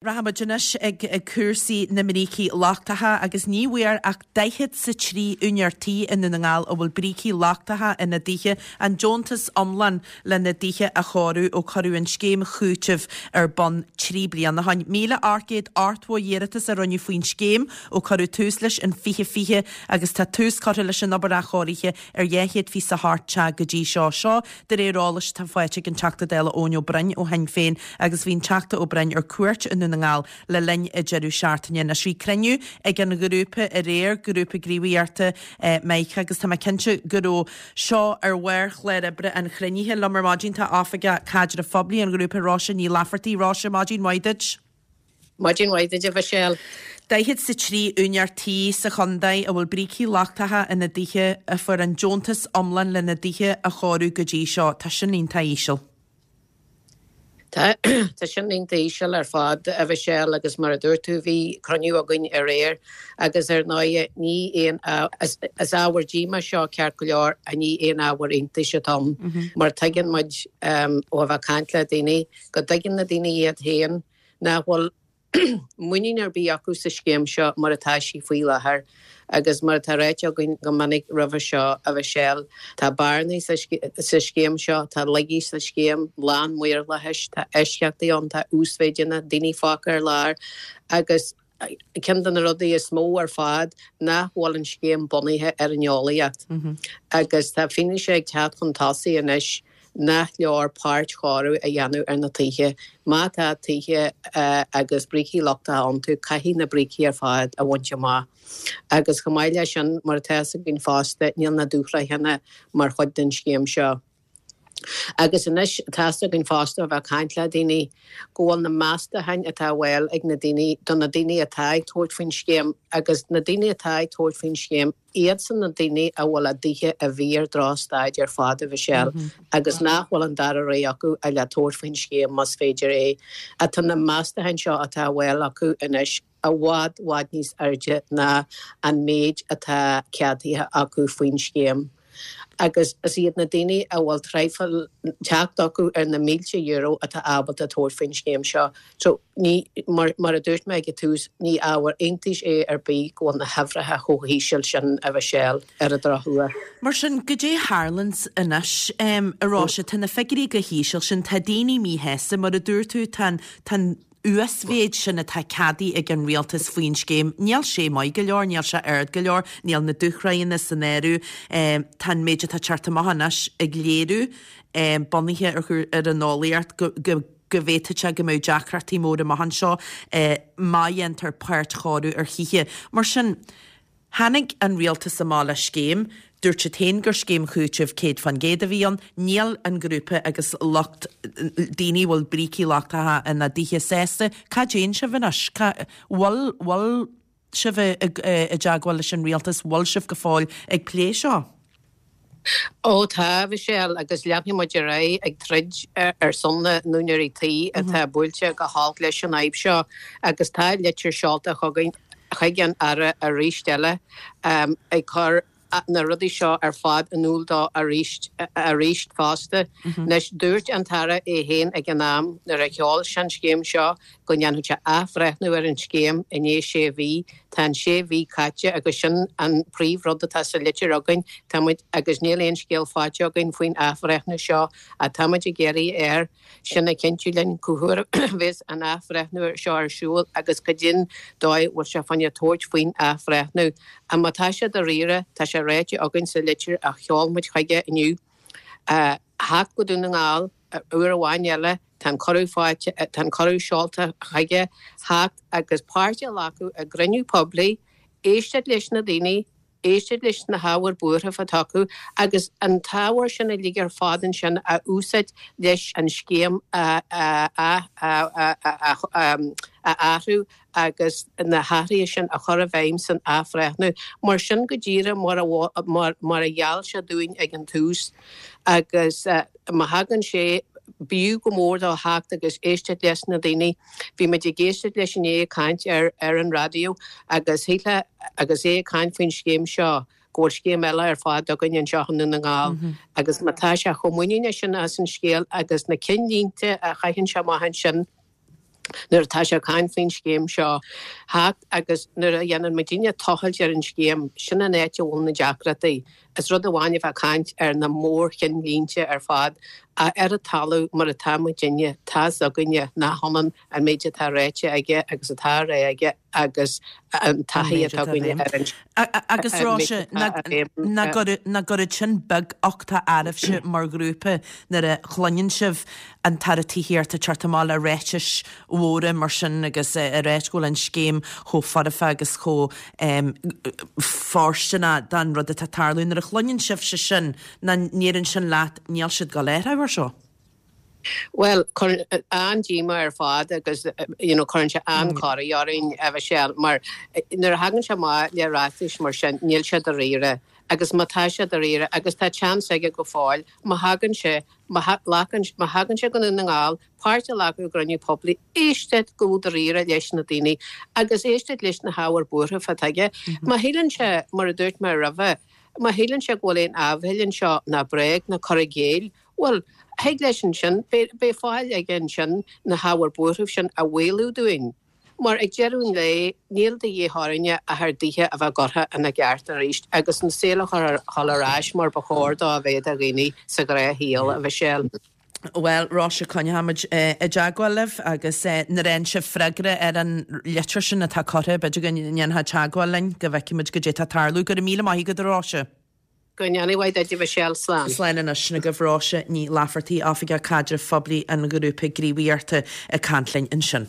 Rachaimid anois ag cúrsaí na mbrící lochtacha agus ní bhfuair ach daichead 's a 3 úinéir tí i nDún na nGall a bhfuil brící lochtacha ina dtithe an deontas iomlán lena dtithe a chóiriú ó cuireadh an scéim chúitimh ar bun 3 bliana ó shin. 1,880 iarratas a rinneadh faoin scéim ó cuireadh tús leis in 2020 agus tá tús curtha leis an obair athchóirithe ar 228 teach go dtí seo. Seo de réir eolais atá faighte ag an Teachta Dála Eoin Ó Broin ó Shinn Féin agus bhí an Teachta Ó Broin ar cuairt i nDún na nGall le linn an deireadh seachtaine. Anois bhí cruinniú ag an ghrúpa aréir, Grúpa Gníomhaíochta Mike agus tá mé cinnte go raibh seo ar bharr chlár oibre an chruinnithe. Liom ar maidin tá Oifigeach Caidrimh Phoiblí an ghrúpa Róise Ní Laifeartaigh. Róise, maidin mhaith duit. Maidin mhaith duit, a Mhichelle. Daichead 's a 3 úinéir tí sa chontae a bhfuil brící lochtacha ina dtithe a fuair an deontas iomlán lena dtithe a chóiriú go dtí seo. Tá sin iontach íseal. Tá, tá sin iontach íseal ar fad, a Mhichelle, agus mar a dúirt tú, bhí cruinniú againn aréir agus ar ndóighe ní aon, is ábhar díomá seo ceart go leor, ach ní aon ábhar iontais atá ann mar tuigeann muid ó a bheith ag caint le daoine go dtuigeann na daoine iad féin nach bhfuil muinín ar bith acu sa scéim seo mar atá sí faoi láthair. Agus mar atá ráite againn go minic roimhe seo, a Mhichelle, tá bearnaí sa scéim seo, tá laigí sa scéim, lán maorlathais, tá eisceachtaí ann, tá uasmhéideanna, daoine fágtha ar lár agus ceann de na rudaí is mó ar fad nach bhfuil an scéim bunaithe ar an eolaíocht. Agus tá fianaise ag teacht chun tosaigh anois nach leor páirtchóiriú a dhéanamh ar na tithe. Má tá tithe agus brící lochtacha iontu, caithfidh na brící ar fad a bhaint amach. Agus chomh maith leis sin, mar atá fhios againn fosta, níl na dúshraitheanna mar chuid den scéim seo. Agus anois, tá fhios againn fosta ó bheith ag caint le daoine, go bhfuil na meastacháin atá á bhfáil ag na daoine, do na daoine atá ag tabhairt faoin scéim, agus na daoine atá ag tabhairt faoin scéim, iadsan na daoine a bhfuil a dtithe i bhfíor-dhrochstaid ar fad, a Mhichelle, agus nach bhfuil an dara rogha acu ach le tabhairt faoin scéim más féidir é. Tá na meastacháin seo atá á bhfáil acu anois i bhfad, bhfad níos airde ná an méid atá ceadaithe acu faoin scéim. Agus is iad na daoine a bhfuil traidhfil teacht acu ar na mílte euro atá ábalta tabhairt faoin scéim seo. So, ní, mar, mar a dúirt mé ag an tús, ní ábhar iontais é ar bith go bhfuil na huimhreacha chomh híseal sin, a Mhichelle, ar an drochuair. Mar sin, goidé a tharlaíonns anois, a Róise, tá na figiúirí chomh híseal sin, tá daoine míshásta, mar a dúirt tú, tá an, tá an uasmhéid sin atá ceadaithe ag an rialtas faoin scéim, níl sé maith go leor, níl sé ard go leor, níl na dúshraitheanna san áireamh. Tá an méid atá ag teacht amach anois ag léiriú, bunaithe ar an eolaíocht, go go bhféadfadh sé go mbeadh deacrachtaí móra amach anseo má dhéantar páirtchóiriú ar thithe. Mar sin, Tháinig an rialtas amach le scéim, dúirt siad féin gur scéim chúitimh 100% a bhí ann, níl an grúpa agus lucht daoine a bhfuil brící lochtacha ina dtithe sásta. Cá dtéann sibh anois? Cá bhfuil bhfuil sibh i dteagmháil leis an rialtas? Bhfuil sibh go fóill ag plé seo? Ó tá, a Mhichelle, agus leanfaidh muid ar aghaidh ag troid ar son na n-úinéirí tí atá buailte go holc leis an fhadhb seo agus tá litir seolta chugainn chuig an Aire arís eile ag cur na rudaí seo ar fad in iúl dó arís arís fosta. Anois, dúirt an tAire é féin ag an am nuair a sheol sé an scéim seo go ndéanfadh sé athbhreithniú ar an scéim i ndiaidh sé mhí. Tá an sé mhí caite agus sin an príomhrud atá sa litir againn. Tá muid, agus níl aon scéal faighte againn faoin athbhreithniú seo, ach tá muid ag iarraidh air sin a chinntiú linn cá huair a bheas an athbhreithniú seo ar siúl agus cad é an dóigh a bhfuil sé fá choinne tabhairt faoin athbhreithniú. Ach má tá sé dáiríre, tá sé ráite againn sa litir a sheol muid chuige inniu, theacht go Dún na nGall uair amháin eile, tá an cuireadh faighte, tá an cuireadh seolta chuige, theacht agus páirt a ghlacadh i gcruinniú poiblí, éisteacht leis na daoine, éisteacht leis na hábhair buairimh atá acu agus an t-ábhar sin uilig ar fad ansin a úsáid leis an scéim a athrú agus na hathruithe sin a chur i bhfeidhm san athbhreithniú. Mar sin go díreach mar a mar a gheall sé dúinn ag an tús agus má thagann sé, b'fhiú go mór dó theacht agus éisteacht leis na daoine. Bhí muid ag éisteacht leis inné ag caint ar ar an raidió agus shílfeá agus é ag caint faoin scéim seo go bhfuil scéim eile ar fad againn anseo i nDún na nGall agus má tá sé chomh muiníneach sin as an scéal agus na cinnlínte a chaitheann sé amach ansin. Nuair atá sé ag caint faoin scéim seo theacht agus nuair a dhéanann muidinne tochailt ar an scéim, sin an áit a bhfuil na deacrachtaí. Is rud amháin a bheith ag caint ar na mórcheannlínte ar fad, ach ar an talamh mar atá muidinne, tá's againne nach ionann an méid atá ráite aige agus atá á rá aige agus an taithí atá againne ar an Agus Róise, nach gcuireann sin beaguchtach oraibhse mar ghrúpa nuair a chluineann sibh an tAire Tithíochta ag teacht amach le ráitis mhóra mar sin agus ag ráit go bhfuil an scéim chomh foirfe agus chomh fóirsteanach don rud atá ag tarlú. Nuair a chluineann sibhse sin, nach ndeireann sin leat níl siad ag dul a athrú air seo? Bhuel, cuireann an-díomá ar fad agus you know cuireann sé an-chorraí orainn, a Mhichelle, mar nuair a thagann sé amach le ráitis mar sin, níl sé dáiríre. Agus má tá sé dáiríre, agus tá chance aige go fóill, má thagann sé, má ghlacann, má thagann sé go Dún na nGall, páirt a ghlacadh i gcruinniú poiblí, éisteacht go dáiríre leis na daoine agus éisteacht leis na hábhair buartha atá aige. Má shíleann sé, mar a dúirt mé roimhe, má shíleann sé go bhfuil aon áibhéil anseo ná bréag ná cur i gcéill, Bhuel, thig leis ansin, beidh fáil aige ansin na hábhair buartha sin a mhaolú dúinn. Mar ag deireadh an lae, níl de dhíth orainne ach ár dtithe a bheith curtha ina gceart arís agus an saol a chur ar ais mar ba chóir dó a bheith do dhaoine sa ghnáthshaol, a Mhichelle. Bhuel, Róise, coinneoimid i dteagmháil libh agus nuair a fhaigheann sibh freagra ar an litir sin atá curtha, b'fhéidir go ndéanfá teagmháil linn go bhfeicfimid goidé atá ag tarlú. Go raibh míle maith agat, a Róise. Go ndéana a mhaith duit, a Mhichelle. Slán. Slán anois. Sin agaibh Róise Ní Laifeartaigh, Oifigeach Caidrimh Phoiblí an Ghrúpa Gníomhaíochta ag caint linn ansin.